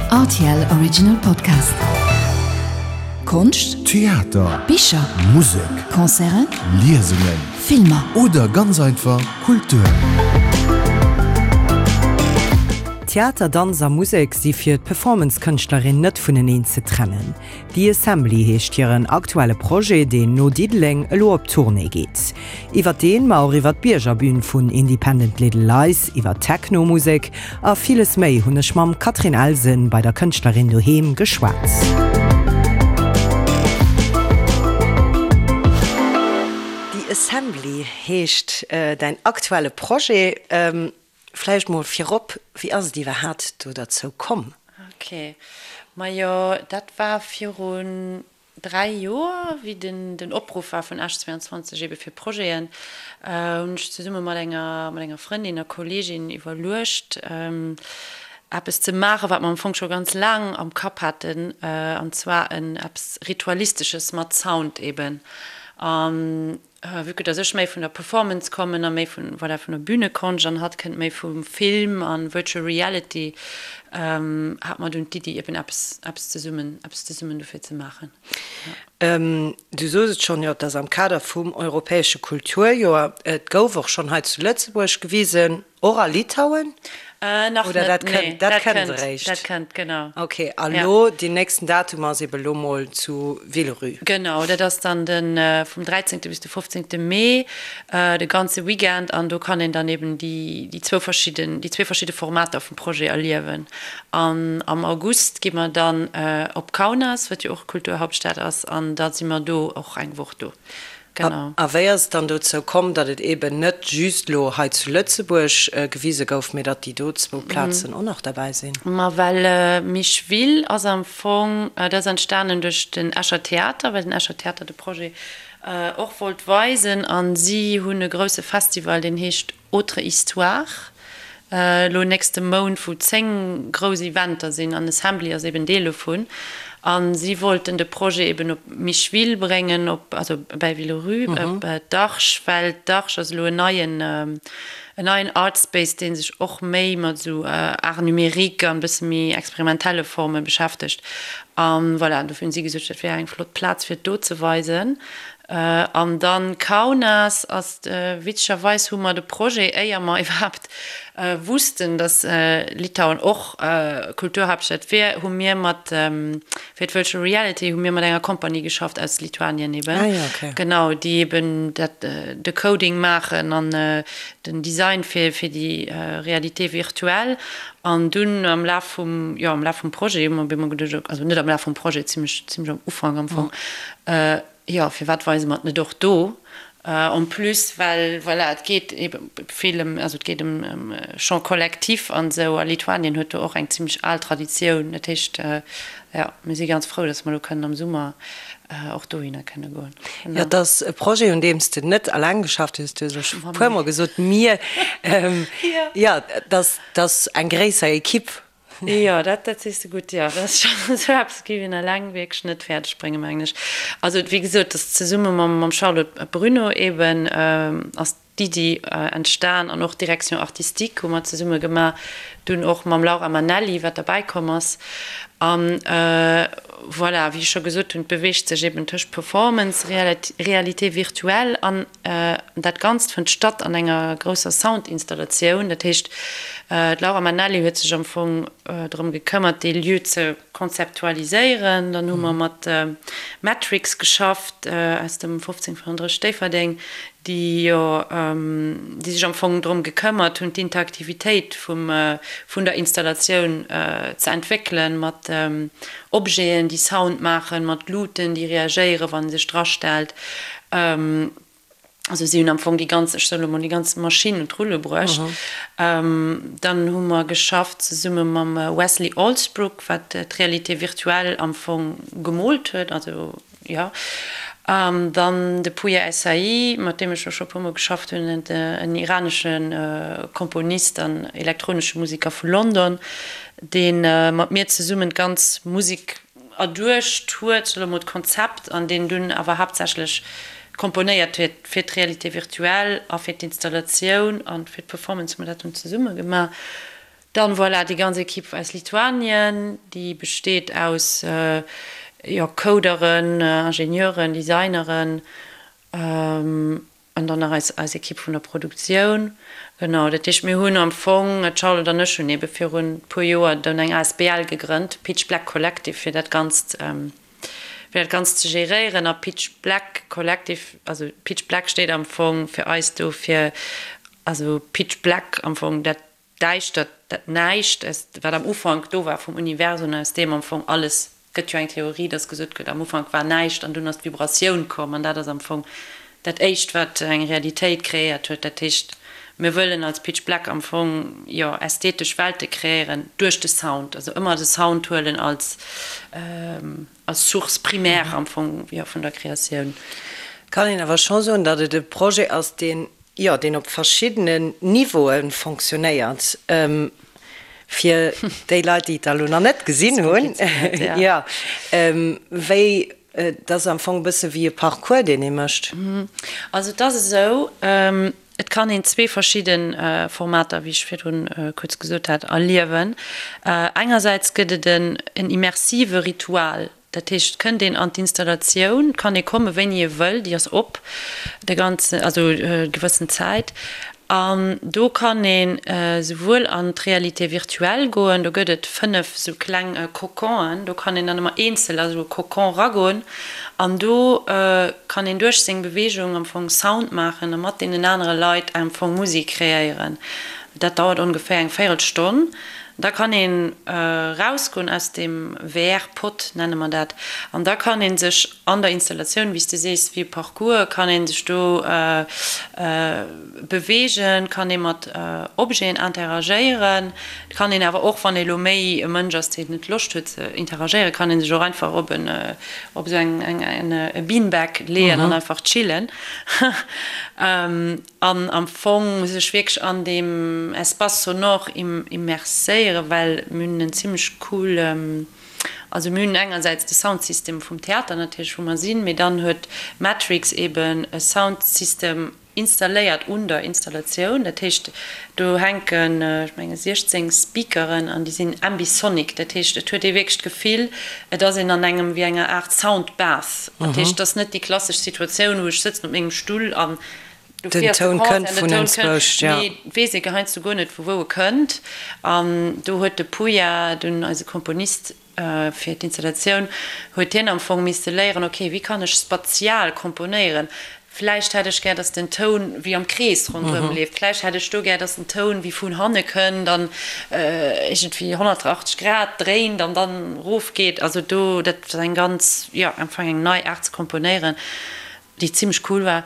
Rtl Original Podcast. Konscht, Theater, Bicher, Musek, Concerten, Liesungen Filmer. oder ganz einfach Kultur. Theater, Danz a Musek si fir d'Performance-Kënschtlerin net vuneneen ze trennen. The Assembly heescht hiren aktuelle Projet, deen no Diddeleng elo op Tournée geet. Iwwer deen, ma och iwwer d'Biergerbün vun Independent Little Lies, iwwer Techno-Musek a villes méi hunn ech mam Catherine Elsen bei der Kënschtlerin doheem geschwat. The Assembly heescht däin aktuelle Projet. Vläicht mol virop, wéi ass et iwwerhaat do derzou komm? Ok, majo dat war virun 3 Joer, wéi den den Opruff war vun Esch 22 ebe fir Projeten, hunn ech zesumme mat enger mat enger Frëndin a Kolleegin iwwerluecht eppes ze maachen, wat mer am Fong scho ganz laang am Kapp haten, an zwar en eppes Ritualistesches mat Sound eben. An Vue que dass ech méi vun der Performance kommen a méi vun, voilà, vun der Bühnekonscht an hatt kënnt méi vum Film an Virtual Reality, hat mer dunn d'Iddi eben eppes, eppes zesummen, eppes zesummen dofir ze maachen. Du sos et schonn, jo, et ass am Kader vum europäesche Kulturjoer. Et gouf och schonn hei zu Lëtzebuerg gewisen. Och a Litauen? Nach Oder net, dat nee. kënnt, dat Dat kënnt kënnt, eréischt? dat kënnt, genau. Ok, a Ja. lo deen nächsten Datum ass ebe lo mol zu Villerupt. Genau, dat ass dann de vum 13. bis de 15. Mee, de ganze Weekend an do kann een dann eben déi déi zwou verschidden, déi zwee verschidde Formater vum Projet erliewen. An am August gi mer dann op Kaunas, wat jo och Kulturhauptstad ass, an da si mer do och eng Woch do. Genau. A wéi ass et dann dozou komm, datt et eeben net just elo hei zu Lëtzebuerg gewise gouf, mee datt déi do zwou Plazen och nach derbäi sinn? Ma well Micheville ass am Fong, dat ass entstanen duerch den Escher Theater, well den Escher Theater de Projet och wollt weisen a si hunn e grousse Festival, deen heescht Autre Histoire, elo nächste Mount, wou 10 grouss Eventer sinn an Assembly ass eben Deel dovun. A si wollten de Projet eben op Micheville bréngen, op, also bäi Villerupt, op d'Arche, well d'Arche ass elo en neien, en neien Art Space, dee sech och méi mat esou Art numérique an e bësse méi experimentelle Forme beschäftegt. A voilà, dofir hunn si gesot, dat wär eng flott Plaz fir et do ze weisen. An dann Kaunas ass, witzegerweis hu mer de Projet, éier mer iwwerhaapt wussten, datt Litauen och Kulturhaaptstad wier, hu mir mat, fir d'Virtual Reality, hu mir mat enger Compagnie geschafft aus Lituanien eben, genau, déi eben dat, de Coding maachen an den Design fir déi Réalité virtuelle. An dunn am Laf vum, jo, am Laf vum Projet hu mer op eemol geduecht, also net am Laf vum Projet, zimlech, zimlech am Ufank am Fong, Jo, firwat weise mer et net och do? En plus, well, voilà, et geet ebe vill ëm, also et geet ëm Chant collectif an esou, a Lituanien huet do och eng zimlech al Traditioun. Dat heescht, jo, mir si ganz frou, datt mer elo kënnen am Summer och dohinner kënne goen. Jo, et ass e Projet, un deem s de net alleng geschafft hues. Du hues elo scho e puermol gesot, mir. Jo, et ass eng gréisser Ekipp. Jo, dat, dat sees de gutt, jo. Dat ass schonn esou eppes géif een eleng wierklech net fäerdeg bréngen, mengen ech. Also, wéi gesot, dat ass zesumme mam, mam Charlotte Bruneau eben ass d'Iddi entstan an och d'Direction artistique hu mer zesumme gemaach, dunn och mam Laura Manelli, wat derbäi komm ass. An voilà, wéi ech scho gesot hunn, et beweegt sech eben tëscht Performance, Réalité virtuelle an Dat Ganzt fënnt statt an enger grousser Soundinstallatioun. Dat heescht, d'Laura Manelli huet sech am Fong drëm gekëmmert, dee Lieu ze konzeptualiséieren. Dann hu mer mat Matrix geschafft aus dem 1535 Déifferdeng, déi jo, déi sech am Fong drëm gekëmmert hunn, d'Interaktivitéit vum, vun der Installatioun ze entwéckelen, mat Objeten, déi Sound maachen, mat Luuten, déi reagéieren, wann ee sech drastellt. Also si hunn am Fong déi ganz, ech soe lo mol, déi ganz Maschinn un d'Rulle bruecht. Dann hu mer geschafft zesumme mam Wesley Allsbrook, wat d'Réalité virtuelle am Fong gemoolt huet, also jo. An dann de Pouya Essaei, mat deem ech och scho e puermol geschafft hunn, en iranesche Komponist an elektronesche Museker vu London, dee mat mir zesummen d'ganz Musek erduecht huet, soe mol d'Konzept, an deen dunn awer haaptsächlech komponéiert huet fir d'Réalité virtuelle a fir d'Installatioun a fir d'Performance hu mer dat dunn zesumme gemaach. Dann, voilà, déi ganz Equipe aus Lituanien, déi besteet aus, jo, Coderen, Ingenieuren, Designeren an dann nach eis, eis Equipe vun der Produktioun. Genau, dat heescht, mir hunn am Fong, d'Charlotte an ech hunn eebe virun e puer Joer dunn eng asbl gegrënnt, Pitch Black Collective, fir dat Ganzt, fir dat Ganzt ze geréieren. A Pitch Black Collective, also Pitch Black steet am Fong fir eis do fir, also Pitch Black am Fong dat Däischtert, dat Näischt, aus, wat am Ufank do war vum Universum, aus deem am Fong alles, gëtt jo eng Theorie, dass gesot gëtt, am Ufank war näischt an dunn ass d'Vibratioun komm an dat ass am Fong dat éischt, wat eng Realitéit kreéiert huet. Dat heescht, mir wëllen als Pitch Black am Fong, jo, ästhetesch Welte kreéieren duerch de Sound, also ëmmer de Sound huelen als, als Source primaire am Fong, jo, vun der Kreatioun. Kann een awer scho soen, datt et e Projet ass, deen, jo, deen op verschiddenen Niveaue fonctionnéiert. Fir déi Leit, déi et da lo nach net gesinn hunn, jo, wéi, et ass am Fong e bësse wéi e Parcours, deen ee mécht. Also et ass esou, et kann een zwee verschidde Formater, wéi ech virdrun kuerz gesot hat, erliewen. Engersäits gëtt et en immersive Ritual, Dat heescht, et kënnt een an d'Installatioun, et kann ee komme wéini ee wëll, déi ass op de ganzen, also gewëssen Zäit. An do kann een esouwuel an d'Réalité virtuelle goen, do gëtt et 5 esou kleng Coconen, do kann een dann ëmmer eenzel a sou e Cocon ragoen an do kann een duerch seng Beweegung am Fong Sound maachen a mat deenen anere Leit am Fong Musek kreéieren. Dat dauert ongeféier eng Véirelstonn. Da kann een rausgoen aus deem VR-Pod, nenne mer dat, an da kann ee sech an der Installatioun, wéi s de sees, wéi e Parcours, kann ee sech do beweegen, kann ee mat Objeten interagéieren. Et kann een awer och, wann ee lo méi e Mënsch ass, deen net Loscht huet ze interagéieren, kann ee sech och einfach op en, op esou eng, e Beanbag leeën an einfach chillen. An am Fong sech wierklech an deem Espace sonore immerséieren, well mir hunn en zimmlech cool, also mir hunn engersäits de Soundsystem vum Theater natierlech, wou mer sinn, mee dann huet Matrix eben e Soundsystem installéiert un der Installatioun. Dat heescht, do hänken, ech menge 16 Speakeren an déi sinn ambisonic. Dat heescht, et huet ee wierklech d'Gefill, et ass een an engem, wéi enger Aart Soundbath. Dat heescht, et ass net déi klassesch Situatioun, wou ech sëtzen op mengem Stull an Den Toun kënnt vun enzwousch, jo. Mee weess ee heiansdo guer net, vu wou e kënnt. An do huet de Puya, dunn eise Komponist fir d'Installatioun, huet hien am Fong misste léieren, ok, wéi kann ech spatial komponéieren? Vläicht hätt ech gär, datt den Toun wéi am Krees ronderëm leeft. Vläicht hätt ech do gär, datt den Toun wéi vun hanne kënnt an iergendwéi 180 Grad dréint an dann erofgeet. Also do, dat ass eng ganz, jo, am Fong eng nei Aart ze komponéieren. déi zimlech cool war.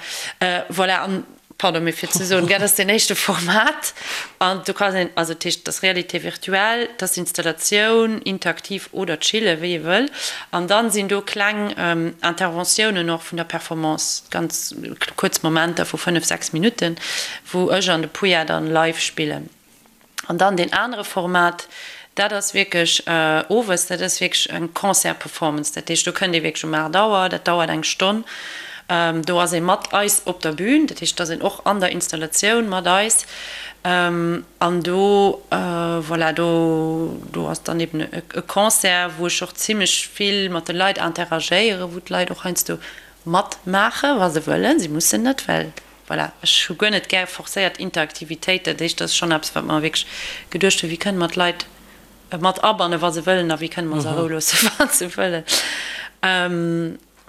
Voilà, an, pardon, mee fir ze soen, dat ass deen éischte Format an do kann een, also dat heescht, dat ass Réalité virtuelle, dat ass Installatioun, interaktiv oder chillen, wéi ee wëll. An dann sinn do kleng Interventiounen och vun der Performance, ganz kuerz Momenter vu 5, 6 Minutten, wou ech an de Puya dann live spillen. An dann deen anere Format, dat ass wierklech owes, dat ass wierklech eng Concert-Performance. Dat heescht, do kënnt ee wierklech um 8 Auer, dat dauert eng Stonn. Do ass ee mat eis op der Bühn, dat heescht, et ass een och an der Installatioun mat eis. An do, voilà, do, do ass dann eben e Concert, wou ech och zimlech vill mat de Leit interagéieren, wou d'Leit och heiansdo matmaachen, wa se wëllen. Si mussen net, well Voilà, ech hu guer net gär forcéiert Interaktivitéit. Dat heescht, dat ass schonn eppes, wat mer wierklech geduecht hunn, Wéi kënne mer d'Leit mat abannen, wa se wëllen, a wéi kënne mer se a Rou loossen, wa se wëllen.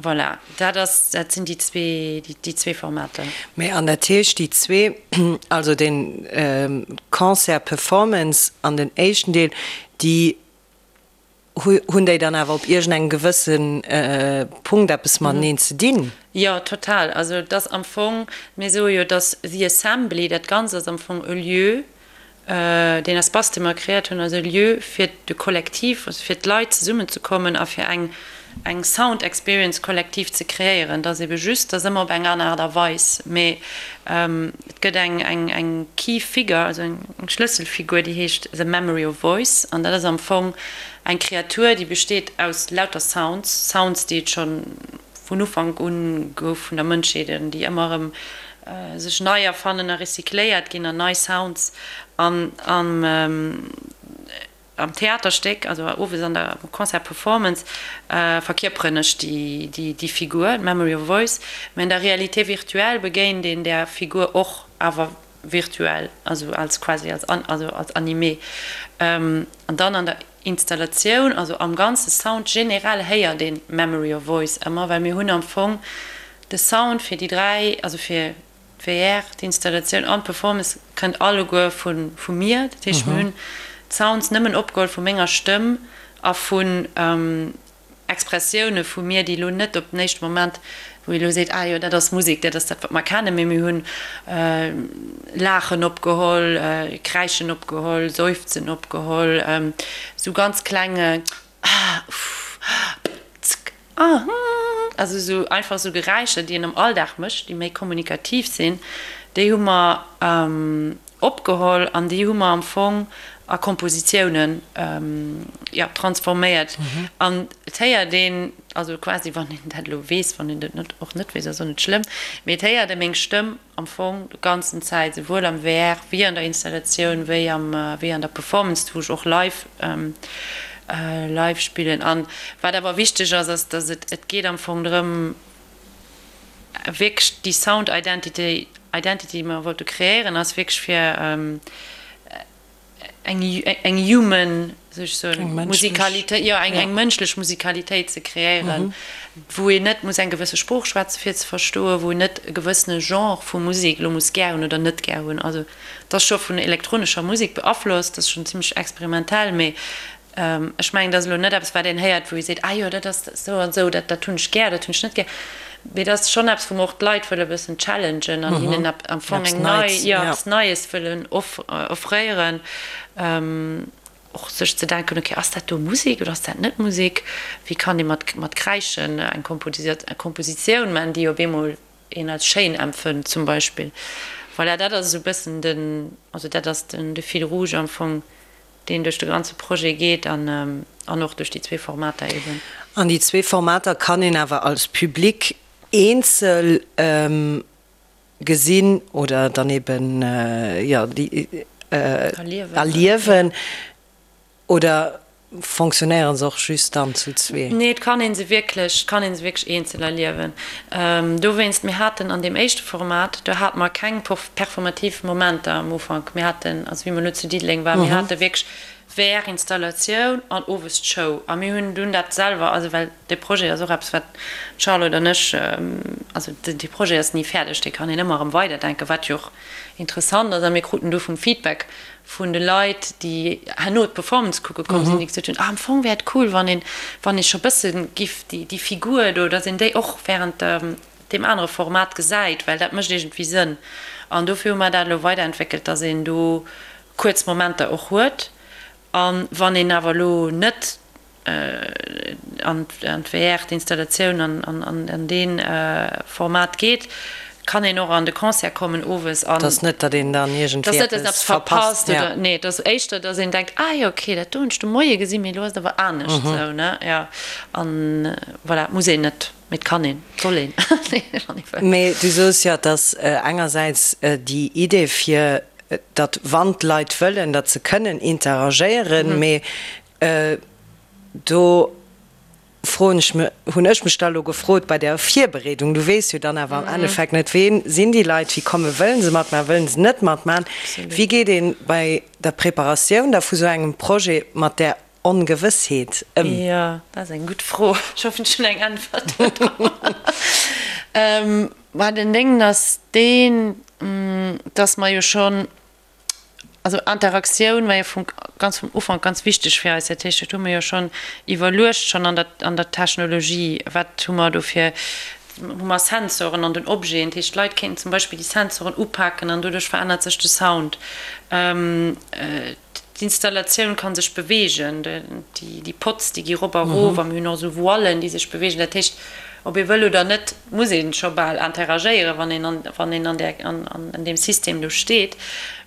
Voilà, dat ass, dat sinn déi zwee, déi zwee Formater. Mee an dat heescht, déi zwee, also den Concert Performance an den éischten Deel, déi Hunn déi dann awer op iergendengem gewësse Punkt eppes mateneen ze dinn? Jo, total. Also et ass am Fong, mir soe jo, dass The Assembly, dat Ganzt ass am Fong e Lieu, deen Espace, dee mer kreéiert hunn, ass e Lieu fir de Kollektiv, also fir d'Leit zesummenzekommen a fir eng eng Sound Experience kollektiv ze kreéieren. Et ass ebe just, et ass ëmmer op eng aner Aart a Weis, mee et gëtt eng eng eng Key Figure, also eng Schlësselfigur, déi heescht The Memory of Voice an dat ass am Fong eng Kreatur, déi besteet aus lauter Sounds, Sounds, déi et scho vun Ufank un gouf vun der Mënschheet an déi ëmmer erëm sech nei erfannen a recycléiert ginn an nei Sounds an an. Am Theaterstéck, also owes an der Concert Performance, verkierperen ech déi Figur, d'Memory of Voice, mä an der Réalité virtuelle begéint een där Figur och, awer virtuell, also als quasi als also als Animé. An dann an der Installatioun, also am ganze Sound generell héiert een d'Memory of Voice ëmmer, well mir hunn am Fong de Sound fir déi 3, also fir D'VR, d'Installatioun an d'Performance kënnt alleguer vu mir. Dat heescht, mir hunn d'Sounds nëmmen opgeholl vu menger Stëmm a vun Expressioune vu mir, déi elo net op den éischte Moment, wou ee elo seet, ah jo, dat ass Musek, dat ass dat, wat mer kennen, mee mir hunn Laachen opgeholl, Kräischen opgeholl, Seufzen opgeholl, esou ganz kleng ah, uff, ah, zck, Ah, hm, also esou einfach esou Geräischer, déi een am Alldag mécht, déi méi kommunikativ sinn, déi hu mer opgeholl an déi hu mer am Fong a Kompositiounen, jo, transforméiert. An et héiert een, also quasi, wann een dat elo weess, wann een dat net, och net weess, ass och net schlëmm, mee et héiert ee meng Stëmm am Fong de ganzen Zäit, souwuel am VR wéi an der Installatioun, wéi am, wéi an der Performance, wou ech och live, live spillen. An wat awer wichteg ass, ass, dass et, et geet am Fong drëm, wierklech déi Sound Identity, Identity, déi mer wollte kreéieren, ass wierklech fir, eng eng human, soll ech soen, Musikalitéit, jo eng eng mënschlech Musikalitéit ze kreéieren, wou een net muss eng gewësse Sprooch schwätze fir ze verstoen, wou een net e gewëssene Genre vu Musek elo muss gär hunn oder net gär hunn. Also et ass scho vun elektronescher Musek beaflosst, ass schonn zimmlech experimentell, mee Ech mengen, dat ass elo net eppes, wat een héiert, wou ee seet, ah jo, dat ass esou an esou, dat dat hunn ech gär, dat hunn ech net gär. Mee dat ass schonn eppes, wou mer och d'Leit wëlle e bëssen challengen an hinnen am Fong eng nei, jo, eppes Neies wëllen offréieren. Och sech ze denken, okay, ass dat do Musek oder ass dat net Musek? Wéi kann ee mat mat Kräischen eng Kompositioun maachen, déi op eemol een als schéin empfënnt zum Beispill. Voilà, dat ass esou e bëssen den, also dat ass den de Fil rouge am Fong, deen duerch de ganze Projet geet an an och duerch déi zwee Formater eben. An déi zwee Formater kann een awer als Public eenzel gesinn oder dann eben, jo, déi erliewen. Oder fonctionnéieren se och just dann zu zwee? Nee, et kann ee se wierklech, et kann ee se wierklech eenzel erliewen. Dowéinst, mir haten an deem éischte Format, do hate mer keng performativ Momenter am Ufank. Mir haten, also wéi mer elo zu Diddeleng waren, mir hate wierklech VR-Installatioun an owes d'Show. A mir hunn dunn dat selwer, also well dee Projet ass och eppes, wat d'Charlotte an ech, also dee Projet ass ni fäerdeg, dee kann een ëmmer erëm weiderdenken, wat jo och interessant ass. A mir kruten du vum Feedback vun de Leit, déi herno d'Performance kucke komm sinn, déi gesot hunn, ah am Fong wär et cool, wann een, wann ee scho bësse giff déi, déi Figur do, datt een déi och während deem anere Format gesäit, well dat mécht iergendwéi Sënn. An dofir hu mer dat elo weiderentwéckelt, datt een do kuerz Momenter och huet. A wann een awer elo net an d'VR, d'Installatioun an dee Format geet, kann een och an de Concert kommen owes an. Et ass net, datt een dann iergendwéi eppes verpasst. Nee, et ass éischter, datt een denkt, ah jo, okay, dat do hunn ech de Moie gesinn, mee elo ass et awer anescht esou, ne? Jo, an voilà, et muss een net, mee et kann een, et soll een, wann ee wëll. Mee du soos jo, et ass engersäits déi Idee fir, datt wann d'Leit wëllen, datt se kënnen interagéieren, mee Do froen ech mech, hunn ech mech da elo gefrot bei där Virbereedung, du weess jo dann awer am Endeffekt net, ween sinn déi Leit, wéi komme, wëllen se matmachen, wëllen se net matmachen? Wéi geet ee bei der Preparatioun da vu sou engem Projet mat där Ongewëssheet ëm? Jo, dat ass eng gutt Fro. Ech hoffen, ech hunn eng Äntwert do drop. Mä den Déngen ass deen, dass mer jo schonn Also Interaktioun war jo vum ganz vum Ufank ganz wichteg fir eis. Dat heescht, dat hu mir jo schonn iwwerluecht, schonn an der an der Technologie, wat hu mer do fir, hu mer Sensoren an den Objeten. Dat heescht, d'Leit kéinten zum Beispill déi Sensoren upaken an doduerch verännert sech de Sound. D'Installatioun ka sech beweegen, déi Pods, déi gi rop a rof a mir hunn och esou Voilen, déi sech beweegen. Dat heescht, ob ee wëll oder net, muss ee scho bal interagéieren, wann een an, wann een an där, an, an deem System do steet.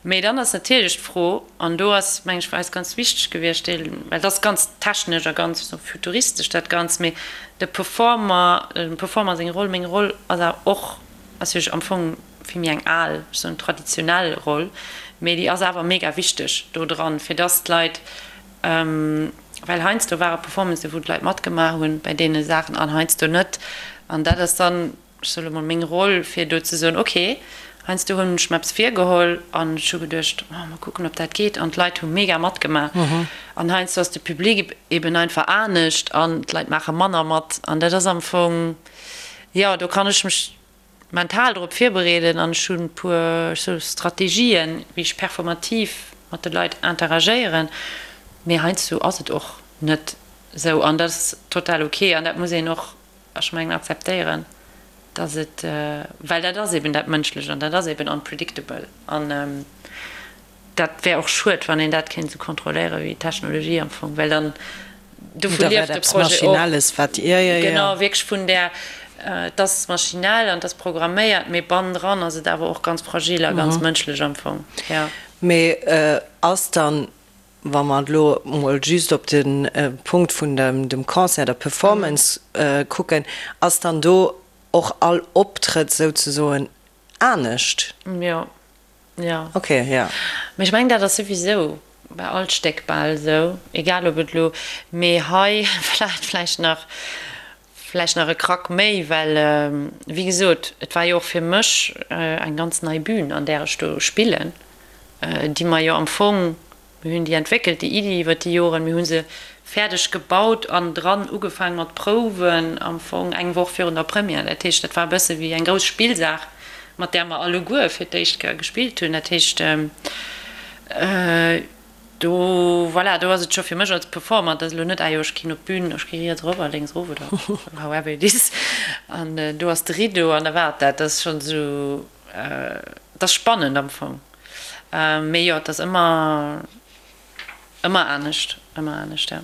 Mee dann ass natierlech d'Fro, an do ass, meng ech, fir eis ganz wichteg gewiescht, dee, well et ass ganz technesch a ganz esou futuristesch dat Ganzt, mee de Performer, dem Performer seng Roll, meng Roll ass awer och, ass jo am Fong vill méi eng al, ech soen traditionell Roll, mee déi ass awer mega wichteg do dran, fir dass d'Leit. Well heiansdo ware Performancen, wou d'Leit matgemaach hunn bei deene Saachen an heiansdo net. An dat ass dann, ech soe lo mol, meng Roll, fir do ze soen, ok, heiansdo hunn ech mer eppes virgeholl an ech hu geduecht, oh, mol kucken, ob dat geet. An d'Leit hu mega matgemaach. An heiansdo ass de Public eben einfach anescht an d'Leit maache manner mat. An dat ass am Fong, jo, do kann ech mech mental drop virbereeden an ech hunn e puer, ech soe Strategien, wéi ech performativ mat de Leit interagéieren, mee heiansdo ass et och net esou an dat ass total ok an dat muss een och, ech mengen, akzeptéieren, dass et, well dat ass eben dat Mënschlecht an dat ass eben unpredictable an Dat wär och schued, wann een dat kéint esou kontrolléieren wéi d'Technologie am Fong, well dann dovu lieft de Projet och. Genau, wierklech vun där, et ass maschinell an et ass programméiert, mee bannendran ass et awer och ganz fragil a ganz mënschlech am Fong, jo. Mee ass dann, wa mer elo mol just op de Punkt vun dem Concert, der Performance kucken, ass dann do och all Optrëtt souzesoen anescht? Jo, Jo. Ok, jo. Mee ech mengen dat ass souwisou bei all Stéck bal esou, egal ob et elo, mee hei vläicht vläicht nach vläicht nach e Krack méi, well wéi gesot, et war jo och fir mech eng ganz nei Bühn an där ech do spillen, déi mer jo am Fong Mir hunn déi entwéckelt, déi Iddi, iwwer déi Joren. Mir hu se fäerdeg gebaut an dran ugefaang mat Prouwen, am Fong eng Woch virun der Première. Dat heescht, dat war e bësse wéi eng grouss Spillsaach, mat där mer alleguer fir d'éischt Kéier gespillt hunn. Dat heescht, do, voilà, do ass et scho fir mech als Performer, et ass elo net, ah jo, ech ginn op d'Bün, ech gi riets erop a lénks erof oder however it is, an do ass de Rideau an da war et dat. Dat ass schonn esou, et ass spannend am Fong. Mee jo, et ass ëmmer, ëmmer anescht, ëmmer anescht, ja.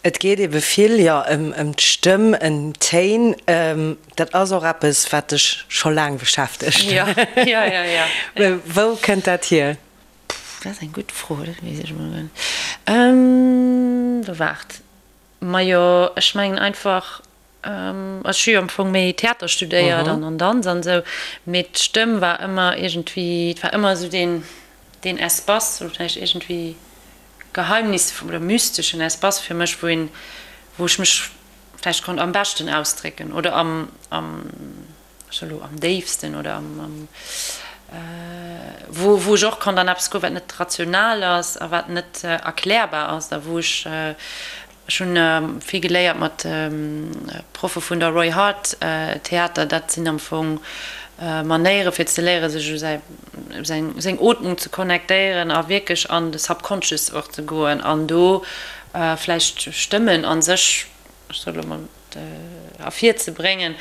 Et geet ebe vill, jo, ëm d'Stëmm, ëm d'Téin. Dat ass och eppes, wat dech scho laang beschäftegt. Jo, jo, jo, jo. Wou kënnt dat hier? Pff, dat ass eng gutt Fro, dat weess ech emol guer net. Waart, majo, ech mengen einfach, Ech hu jo am Fong méi Theater studéiert an an Danz an esou, mee d'Stëmm war ëmmer iergendwéi, et war ëmmer esou deen, deen Espace, oder vläicht iergendwéi geheimnisvoll oder mysteschen Espace fir mech, wou een, wou ech mech vläicht konnt am beschten ausdrécken oder am, am, ech soe lo am déifsten oder am, am, wou, wou ech och konnt an eppes goen, wat net rational ass a wat net erklärbar ass a wou ech Ech hunn vill geléiert mat Proffe vun der Roy Hart Theater. Dat sinn am Fong Manéiere fir ze léiere sech u säi seng Ootmung ze connectéieren a wierklech an de Subconscious och ze goen an do vläicht Stëmmen a sech, ech soe lo mol, ervirzebréngen,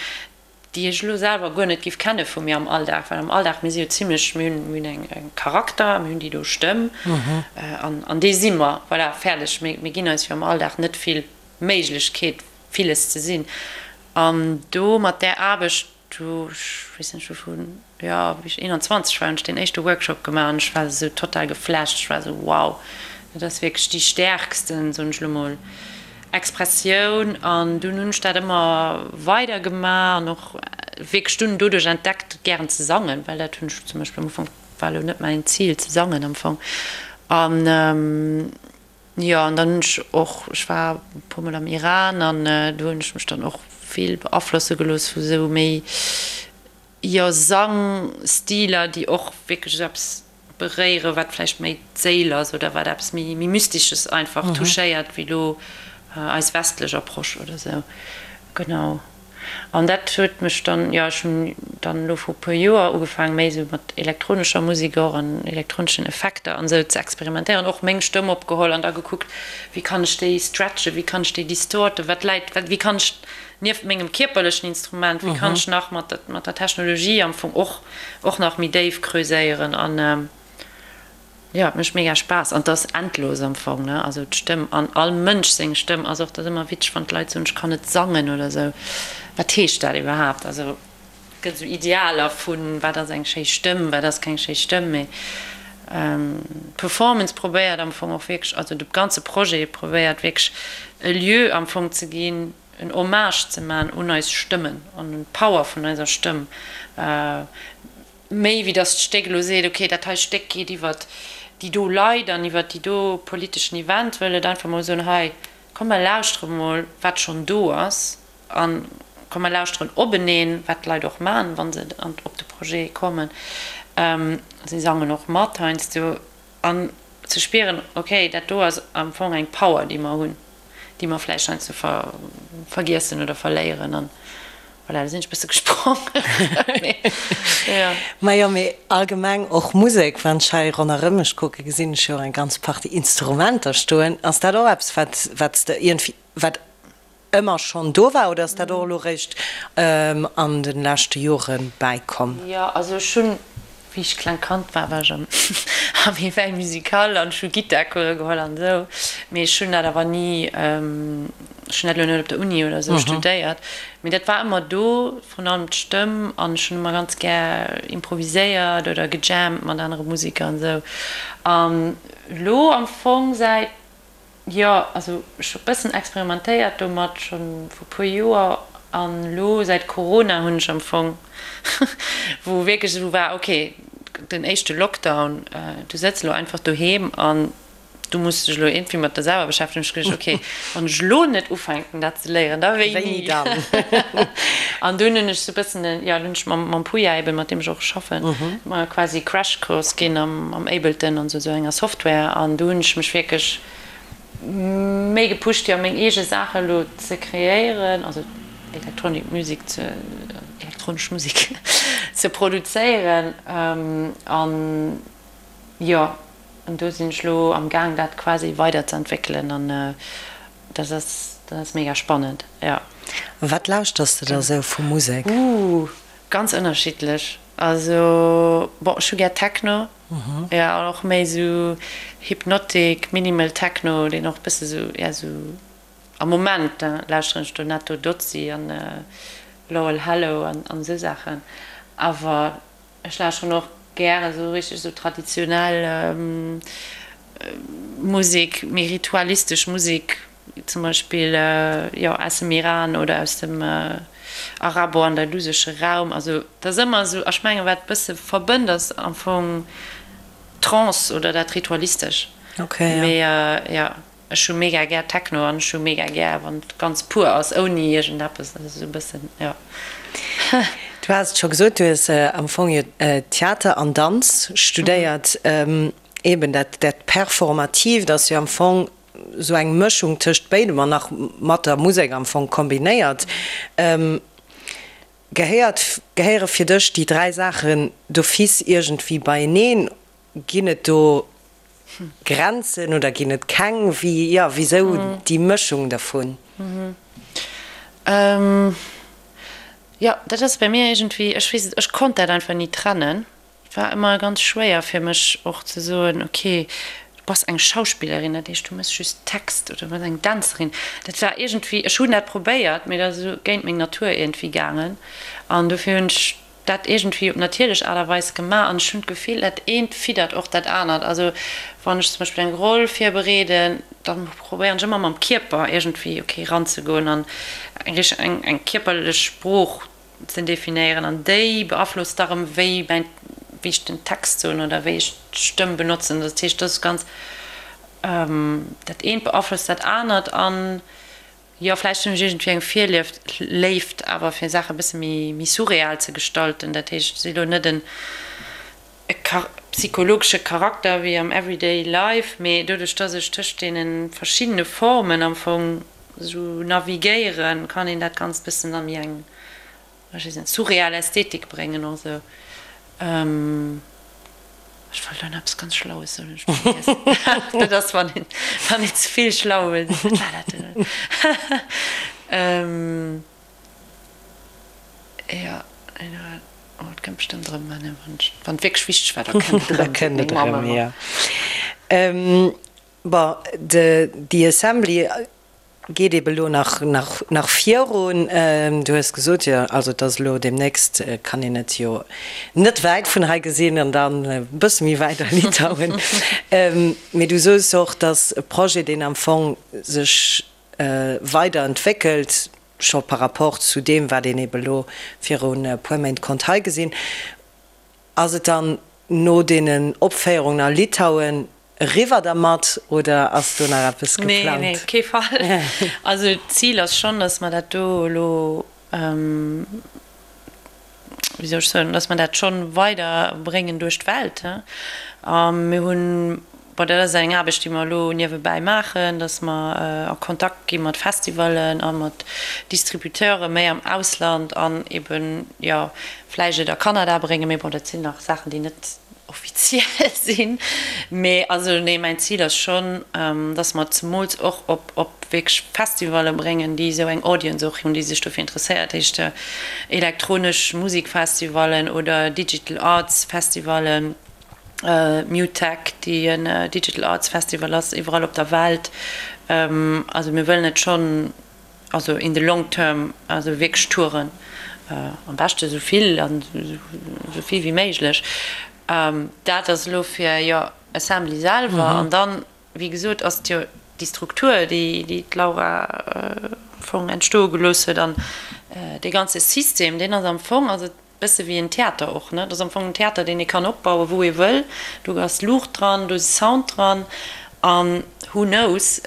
déi ech elo selwer guer net giff kenne vu mir am Alldag, well am Alldag, mir si jo zimlech, mir hunn, mir hunn eng, eng Charakter, mir hunn déi do Stëmm an, an déi si mer, voilà, fäerdeg. Mir, mir ginn eis jo am Alldag net vill Méiglechkeet, villes ze sinn. An do mat där Aarbecht, do, ech weess net, ech hu vu, jo, wéi ech 21 war, hunn ech deen éischte Workshop gemaach an ech war esou total geflasht, ech war esou, wow, dat ass wierklech déi stäerksten, soen ech elo mol, Expressioun an dunn hunn ech dat ëmmer weider gemaach an och wierklech dunn doduerch entdeckt gären ze sangen, well dat hunn ech zum Beispill am Ufank, war elo net mäin Zil ze sangen am Fong an jo an dann hunn ech och, ech war e puer mol am Iran an do hunn ech mech dann och vill beaflosse gelooss vu sou méi jo Sangstiler déi och wierklech esou eppes beréieren, wat vläicht méi d'Séil ass oder wat eppes méi Mystesches einfach touchéiert wéi elo eis westlech Approche oder sou. Genau. An dat huet mech dann, jo, ech hunn dann elo vru puer Joer ugefaangen, méi esou mat elektronescher Musek och an elektroneschen Effekter an esou ze experimentéieren, och meng Stëmm opgeholl an da gekuckt, wéi kann ech déi stretchen, wéi kann ech déi distorten, wat läit, wat, wéi kann ech nieft mengem kierperlechen Instrument, wéi kann ech nach mat der Technologie am Fong och och nach méi déif creuséieren an jo et mécht mega Spaass an et ass endlos am Fong ne, also d'Stëmm an all Mënsch seng Stëmm ass och, et ass ëmmer witzeg wann d'Leit soen ech kann net sangen oder sou, wat heescht dat iwwerhaapt, also et gëtt esou Idealer vun wat ass eng schéi Stëmm, wat ass keng schéi Stëmm, mee d'Performance probéiert am Fong och wierklech, also de ganze Projet probéiert wierklech e Lieu am Fong ze ginn, en Hommage ze man un eis Stëmmen an un d'Power vun eiser Stëmm, méi wéi datt d'Stéck elo seet, ok, dat hei Stéck geet iwwert. déi do Leit an iwwert déi do politeschen Event, wëll et einfach mol soen, hei komm mer lauschtere mol wat schonn do ass a komm mer lauschteren openeen, wat d'Leit och maachen, wa se op de Projet kommen. Si sangen och mat heiansdo. An ze spieren, ok, dat do ass am Fong eng Power, déi mer hunn, déi mer vläicht heiansdo vergiessen oder verléieren. An voilà, do sinn ech e bësse gesprongen. Jo. Majo, mee allgemeng och Musek, wann ech hei ronderëm mech kucken, gesinn ech jo och eng ganz Partie Instrumenter stoen. Ass dat och eppes, wat, wat s de iergendwéi, wat ëmmer schonn do war oder ass dat och elo réischt an de leschte Jore bäikomm? Jo, also ech hunn, wéi ech klengt Kand war, war ech am am Éveil musical an ech hu Gittarcourse geholl an esou, mee ech hunn dat awer ni, ech hunn dat elo net op der Uni oder esou studéiert, mee dat war ëmmer do, vrun allem d'Stëmm an ech hunn ëmmer ganz gär improviséiert oder gejammt mat anere Museker an esou. An elo am Fong säit Jo, also ech hu bëssen experimentéiert domat schonn vu puer Joer an elo säit Corona hunn ech am Fong, wou wierklech esou war, ok, den éischte Lockdown, du sëtz elo einfach doheem an du muss dech elo iergendwéi mat der selwer beschäftegen, hunn ech geduecht, ok, wann ech elo net ufänken dat ze léieren, da wéini dann? An dunn hunn ech esou bëssen, jo, dunn hunn ech mam Puya eben, mat deem ech och schaffen, mer quasi Crashcourse ginn am Ableton an esou enger Software an do hunn ech mech wierklech méi gepusht jo meng eege Saache elo ze kreéieren, also Electronic Music ze, elektronesch Musek ze produzéieren an jo an do sinn ech elo am gaang dat quasi weider ze entwéckelen an dat ass dat ass mega spannend, jo. Wat lauschters de da sou vu Musek? Ooh, ganz ënnerschiddlech. Also bon, ech hu gär Techno, jo, an och méi esou Hypnotic, Minimal Techno, deen och bësse sou, ja sou, am Moment lauschteren ech do Netto Dozzi an Lowell Hello an esou Saachen. Awer ech lauschteren och gär esou richteg esou traditionell Musek, méi ritualistesch Musek, Zum Beispill jo aus dem Iran oder aus dem arabo-andalusesche Raum. Also et ass ëmmer esou, ech mengen wat e bësse verbënnt ass am Fong d'Trance oder dat Ritualistesch. Mee jo, ech hu mega gär Techno an ech hu mega gär wann et ganz pur ass, ouni iergendeppes. Dat ass esou e bëssen, jo. Du has et scho gesot, du hues am Fong jo Theater an Danz studéiert. Eben dat Performatiivt ass jo am Fong Sou eng Mëschung tëscht béidem an nach mat der Musek am Fong kombinéiert. Gehéiert, gehéiere fir dech déi 3 Saachen d'office iergendwéi beieneen? Ginn et do Grenzen oder ginn et keng? Wéi, jo, wisou déi Mëschung dervun? Jo, dat ass bei mir iergendwéi, ech weess et, ech konnt dat einfach ni trennen. Et war ëmmer ganz schwéier fir mech och ze soen, ok, du bass eng Schauspillerin, dat heescht du méchs just Text oder du bass eng Dänzerin. Dat war iergendwéi, ech hunn dat probéiert, mee dat ass esou géint meng Natur iergendwéi gaangen an dofir hunn ech dat iergendwéi op natierlech Aart a Weis gemaach an ech hunn d'Gefill, dat eent fiddert och dat anert. Also wann ech zum Beispill eng Roll virbereeden, da probéieren ech ëmmer mam Kierper iergendwéi, ok, eranzegoen an eng richteg, eng kierperlech Sprooch ze definéieren an déi beaflosst da rëm wéi mäin, wéi ech den Text soen oder wéi ech d'Stëmm benotzen. Dat heescht, dat ass ganz, dat eent beaflosst dat anert an jo, vläicht hunn ech iergendwéi eng Virlieft, Léift awer fir Saache e bësse méi, méi surreal ze gestalten. Dat heescht, ech si lo net en e psychologesche Charakter wéi am everyday life, mee doduerch dass ech tëscht deene verschiddene Formen am Fong esou navigéieren, kann een dat Ganzt bëssen a méi eng, ech weess net, surreal Ästhetik bréngen och esou. Ech wollt elo nach eppes ganz Schlaues soen, hunn ech vergiess. Dat ass wann een, wann een ze vill schlau wëll sinn. Wat war dat denn elo? Jo, oh, et kënnt bestëmmt erëm, wann et wierklech wichteg war, da kënnt et erëm. Da kënnt et erëm, jo. Bon, de The Assembly geet ebe lo nach, nach, nach virun. Du hues gesot, jo, also et ass elo deemnächst, kann een et jo net wäit vun hei gesinn an dann e bësse méi wäit a Litauen. Mee du soos och, dass e Projet, deen am Fong sech weider entwéckelt, scho par rapport zu deem, wat een ebe lo virun e puer Méint konnt hei gesinn. Ass et dann. No deenen Opféierungen a Litauen eriwwer dermat oder ass do nach eppes geplangt? Nee, nee, op kee Fall. Also d'Zil ass schonn, datt mer dat do elo, wéi soll ech soen, datt mer dat schonn weider bréngen duerch d'Welt. A mir hunn, bon, dat ass eng Aarbecht, déi mer elo niewebäi maachen, datt mer a Kontakt gi mat Festivallen a mat Distributeure méi am Ausland an eben, jo, vläicht et a Kanada bréngen, mee bon, dat sinn nach Saachen, déi net offiziell sinn. Mee also nee, mäin Zil ass schonn, dass mer et zemools och op op wierklech Festivalle bréngen, déi esou eng Audience och hunn, déi sech dofir interesséiert, heescht elektronesch Musikfestivallen oder Digital Arts Festivallen, MUTEK, déi en Digital Arts Festival ass, iwwerall op der Welt. Also mir wëllen et schonn. Also in the long term, also wierklech Touren, am beschte esou vill an esou vill wéi méiglech. Dat ass elo fir, jo, Assembly selwer. An dann, wéi gesot, ass et jo déi Struktur, déi déi d'Laura am Fong entstoe gelooss huet an dee ganze System, deen ass am Fong, also Bësse wéi en Theater och, ne? Dat ass am Fong en Theater, deen ee kann opbauen, wou ee wëll. Do ass Luucht dran, do ass Sound dran. An who knows,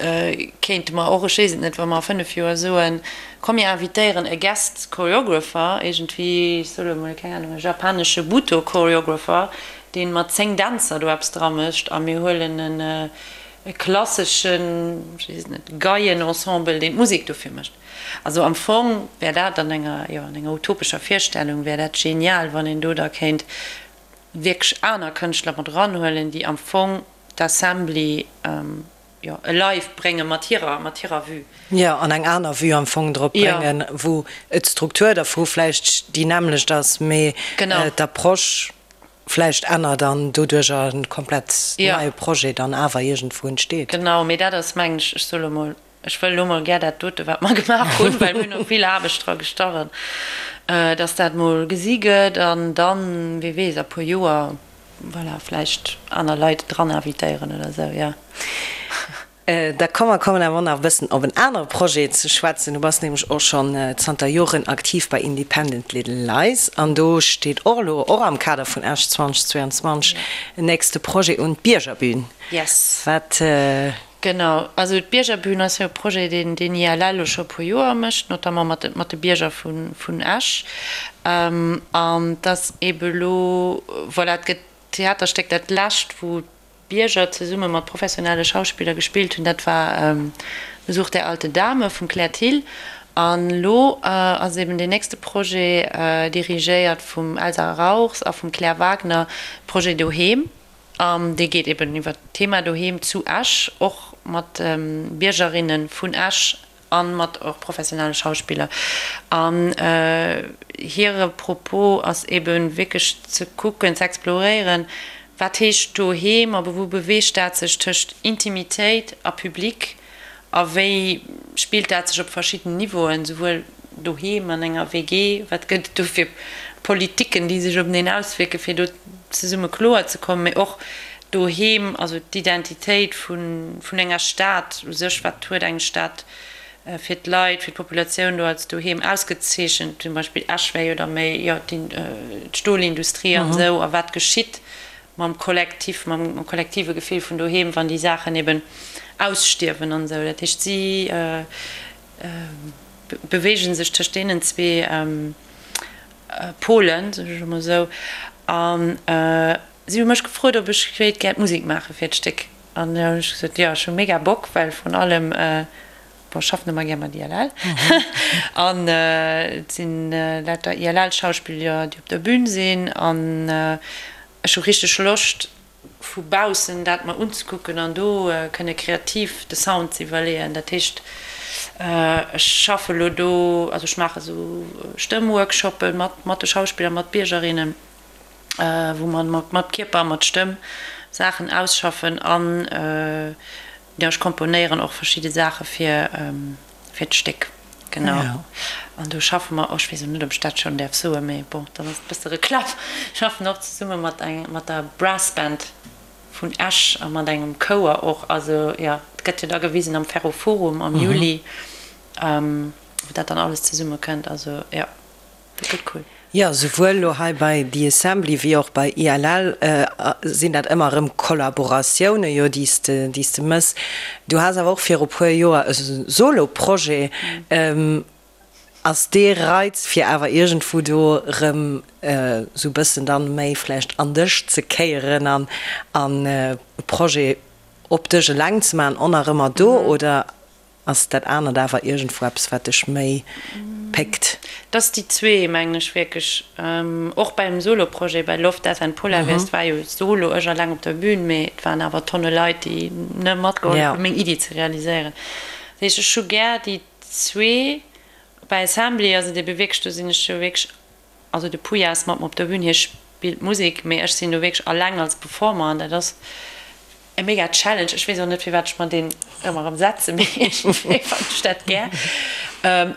kéinte mer och, ech weess et net, wa mer a 5 Joer soen, komm mir invitéieren e Guest Choreographer, iergendwéi, ech soe lo emol, keng Ahnung, e japanesche Butoh Choreographer, dee mat 10 Dänzer do eppes dra mécht a mir huelen en e klasseschen, ech weess et net, Geienensemble, deen d'Musek dofir mécht. Also am Fong wär dat an enger, jo, an enger utopescher Virstellung wär dat genial, wann een do da kéint wierklech aner Kënschtler mat eranhuelen, déi am Fong d'Assembly, jo, alive brénge mat hirer, mat hirer Vue. Jo, an eng aner Vue am Fong drop bréngen, wou d'Struktur dervu vläicht déi nämmlecht ass, mee d'Approche vläicht ännert an doduerch e komplett neie Projet dann awer iergendwou entsteet. Genau, mee dat ass, mengen ech, ech soe lo mol, Ech wëll elo mol gär dat dote wat mer gemaach hunn, well mir hunn och vill Aarbecht dra gestachen, dass dat mol gesi gëtt an dann, wie weess, a puer Joer, voilà, vläicht aner Leit dran invitéieren oder esou, jo. Da komm mer kommen awer och nach e bëssen op en anere Projet ze schwätzen. Du bass nämlech och schonn zanter Joren aktiv bei Independent Little Lies an do steet och elo, och am Kader vun Esch 2022, en nächste Projet un, d'Biergerbün. Yes. Wat Genau, also d'Biergerbühn ass jo e Projet, deen den ILL elo scho e puer Joer mécht, notamment mat de, mat de Bierger vu vun Esch. An et ass eebe elo, voilà, et gëtt d'Theaterstéck, dat lescht, wou d'Bierger zesumme mat professionelle Schauspiller gespillt hunn, dat war Besuch der alten Dame vum Claire Thill. An elo ass eeben deen nächste Projet, dirigéiert vum Elsa Rauchs a vum Claire Wagner, Projet Doheem. An dee geet eben iwwer d'Thema Doheem zu Esch, och mat Biergerinne vun Esch a mat och professionelle Schauspiller. An hire Propos ass ebe wierklech ze kucken, ze exploréieren, wat heescht Doheem a wou beweegt dat sech tëscht Intimitéit a Public A wéi spillt dat sech op verschidden Niveauen, souwuel doheem an enger WG, wat gëtt et do fir Politiken, déi sech openeen auswierken, fir do zesumme kloer ze kommen, mee och doheem, also d'Identitéit vun enger Stad u sech, wat huet eng Stad fir d'Leit, fir d'Populatioun do als doheem ausgezeechent, zum Beispill Esch wär jo da méi, jo, d'Stolindustrie an esou, a wat geschitt mam Kollektiv, mam kollektive Gefill vun doheem, wann déi Saachen eben ausstierwen an esou. Dat heescht, si beweege sech tëscht deenen zwee Polen, soen ech emol esou. A si hu mech gefrot, ob ech wéilt gär d'Musek maache fir d'Stéck. An da hunn ech gesot, jo, ech hu mega Bock, well vrun allem, bon, ech schaffen ëmmer gär mat ILL an et sinn lauter ILL-Schauspiller, déi op der Bün sinn an Ech hu richteg Loscht vu baussen dat mer unzekucken an do kënne kreativ de Sound ze iwwerleeën. Dat heescht ech schaffe lo do, also ech maache sou Stëmmworkshoppe mat mat de Schauspiller, mat Biergerinnen, wou mer mat mat Kierper a mat Stëmm Saachen ausschaffen an jo ech komponéieren och verschidde Saache fir fir d'Stéck. Genau. An do schaffe mer och, ech weess elo net, ob ech dat schonn däerf soen, mee bon, dann ass et e bësse Reklamm, schaffen och zesumme mat eng, mat der Brass Band vun Esch a mat engem Chouer och. Also jo, et gëtt jo da gewisen am Ferroforum am Juli, wou dat dann alles zesumme kënnt. Also jo, dat gëtt cool. Jo, souwuel elo hei bei The Assembly wéi och bei ILL sinn dat ëmmer erëm Kollaboratioune jo, déi s de, déi s de mëss. Du has awer och viru puer Joer e Solo-Projet. Ass dee Reiz fir awer iergendwou do erëm esou e bëssen dann méi vläicht an dech ze kéieren an an e Projet op dech eleng ze maachen och nach ëmmer do oder Ass dat anert awer iergendwou eppes, wat dech méi péckt? Dass déi zwee, mengen ech wierklech. Och beim Solo-Projet, bei Love, Death and Polar Bears, et war jo solo, ech alleng op der Bühn, mee et waren awer Tonne Leit, déi, ne, matgehollef hunn, meng Iddi ze realiséieren. Dat heescht, ech hu gär déi zwee. Bei Assembly ass et ebe wierklech, do sinn ech jo wierklech, also de Puya ass mat mer op der Bühn, hie spillt Musek, mee ech sinn do wierklech alleng als Performer an dat ass, E mega Challenge, ech weess och net firwat ech mer deen ëmmer erëm setzen, mee iergendwéi fannen ech dat gär.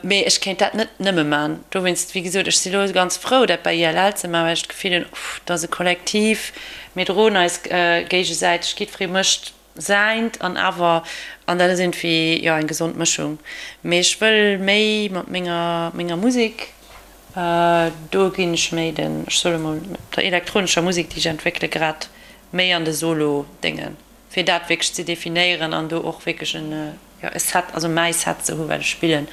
Mee ech kéint dat net nëmme man. Dowéinst, wéi gesot, ech si lo ganz frou dat bei ILL ze man, well ech d'Gefill hunn, uff, dat ass e Kollektiv, mir droen eis géigesäiteg, jiddweree mécht säint an awer, an dat ass iergendwéi, jo, eng gesond Mëschung. Mee ech wëll méi mat menger menger Musek, do ginn ech méi den, ech soe mol, der elektronescher Musek, déi ech entwéckele grad, méi an de Solo-Déngen, fir dat wierklech ze definéieren an do och wierklech en, jo, e Set, also mäi Set ze hu wat ech spillen.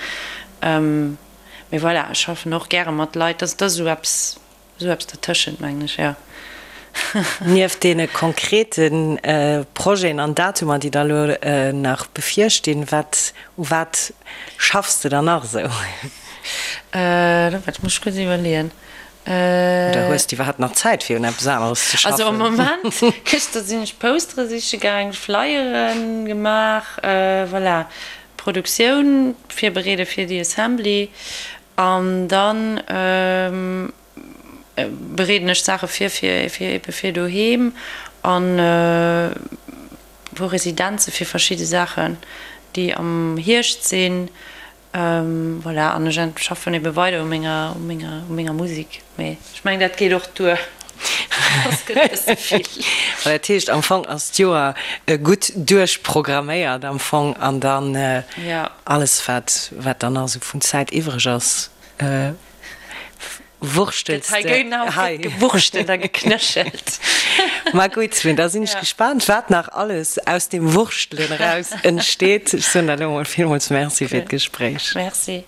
Mee voilà, ech schaffen och gäre mat Leit, dat ass esou eppes, esou eppes dertëschent, mengen ech, jo. Nieft deene konkrete Projeten an Datumer, déi der elo nach bevirstinn, wat, u wat schaffs de dann nach esou? Dat muss ech kuerz iwwerleeën. Oder hues de iwwerhaapt nach Zäit fir un eppes aneres ze schaffen? Also am Moment, gëschter sinn ech Postere siche gaang, Flyere gemaach, voilà, Produktioun virbereede fir déi Assembly an dann bereeden ech Saache vir fir fir ebe fir doheem an e puer Residenze fir verschidde Saachen, déi am Hierscht sinn. Voilà, an ech schaffen ebe weider u menger, u menger, u menger Musik. Mee ech mengen, dat geet och duer. Soss gëtt et e bësse vill. Voilà, dat heescht, am Fong ass d'Joer gutt duerchprogramméiert am Fong an dann alles, wat, wat dann nach esou vun Zäit iwwreg ass, Wurstels de hei. Gewurschtelt a geknéchelt. Ma gutt, mee da sinn ech gespaant, wat nach alles aus deem Wurschtelen eraus entsteet. Ech soen der elo mol villmools Merci fir d'Gespréich. Merci.